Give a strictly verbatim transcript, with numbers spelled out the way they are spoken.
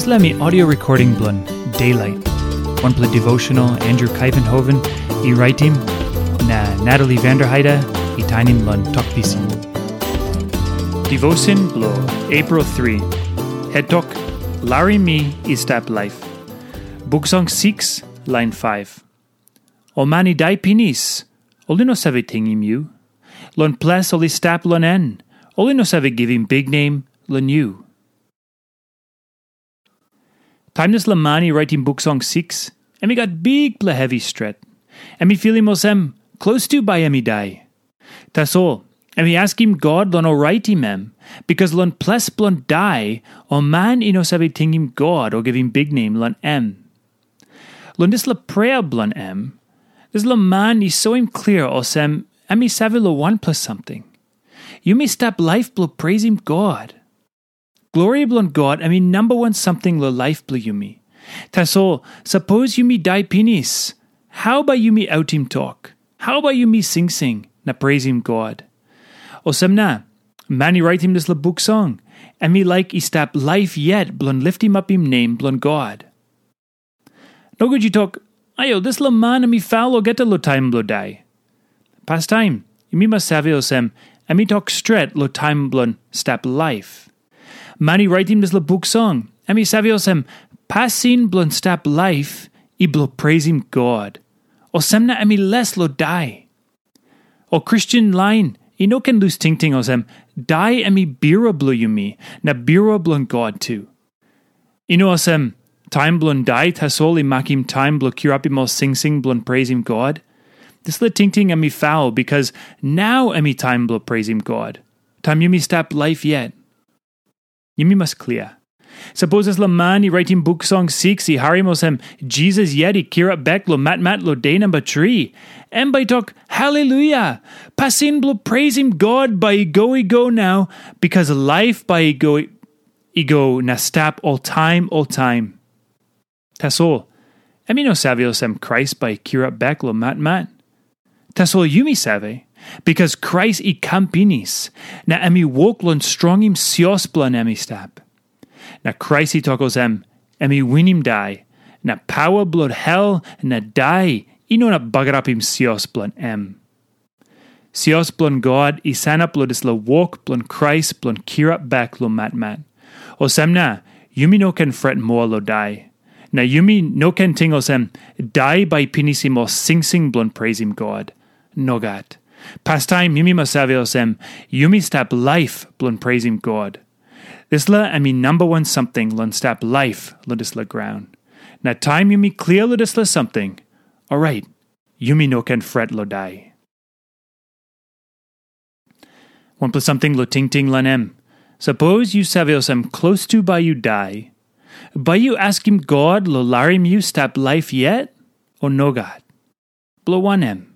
Dispela mi audio recording bilong Daylight, wanpela devotional Andrew Kaivenhoven i raitim, na Natalie Vanderheide i tainim long Tok Pisin. Devotion bilong April three. Het tok, Larim mi i stap laip. Buk Song six, lain five. Ol man i dai pinis, ol i no save tingim yu. Long ples ol i stap long en, ol i no save givim biknem long yu. Taim dispela man i raitim Buk Song six, em i gat bikpela hevi stret. Em i filim olsem, klostu bai em i dai. Tasol, em i askim God long oraitim em, bikas long ples bilong dai, ol man i no save tingim God o givim biknem long em. Long dispela prea bilong em, dispela man i soim klia olsem, em i save long wanpela samting. Yumi stap laip bilong preisim God. Glori bilong God em i namba wan samting long laip bilong yumi. Tasol, sapos yumi dai pinis, hau bai yumi autim tok? Hau bai yumi singsing na preisim God? Olsem na, man i raitim dispela Buk Song, em i laik i stap laip yet bilong litimapim nem bilong God. Nogut yu tok, ayo, dispela man em i faul olgeta long taim bilong dai. Pastaim, yumi mas save olsem, em i tok stret long taim bilong stap laip. Man i raitim dispela Buk Song, em i save olsem, pasin bilong stap laip i bilong preisim God. Olsem na em i les long dai. Ol Kristen lain i no ken lus tingting olsem, dai em i birua bilong yumi, na birua bilong God tu. I no olsem, taim bilong dai tasol i makim taim bilong kirapim ol singsing bilong preisim God. Dispela tingting em i faul, bikas nau em i taim bilong preisim God, taim yumi stap laip yet. Yumi mas klia. Sapos dispela man i raitim Buk Song six i harim olsem, Jisas yet i kirap bek long matmat long de namba tri, em bai tok, haleluya! Pasin bilong preisim God bai i go i go nau, bikas laip bai i go i go na stap oltaim oltaim. Tasol, em i no save olsem Krais bai i kirap bek long matmat. Tasol yumi save, bikas Krais i kam pinis, na em i wok long strongim sios bilong em i stap. Na Krais i tok olsem, em i winim dai, na paua bilong hel na dai i no inap bagarapim sios bilong em. Sios bilong God i sanap long dispela wok bilong Krais bilong kirap bek long matmat. Olsem na, yumi no ken fret moa long dai. Na yumi no ken ting olsem, dai bai pinisim ol singsing bilong preisim God. Nogat. Pastaim yumi mas save olsem, yumi stap laip bilong preisim God. Dispela em i namba wan samting long stap laip long dispela graun. Na taim yumi klia long dispela samting, orait, yumi no ken fret long dai. Wanpela samting long tingting long em. Sapos yu save olsem klostu bai yu dai, bai yu askim God long larim yu stap laip yet, o nogat? Bilong wanem?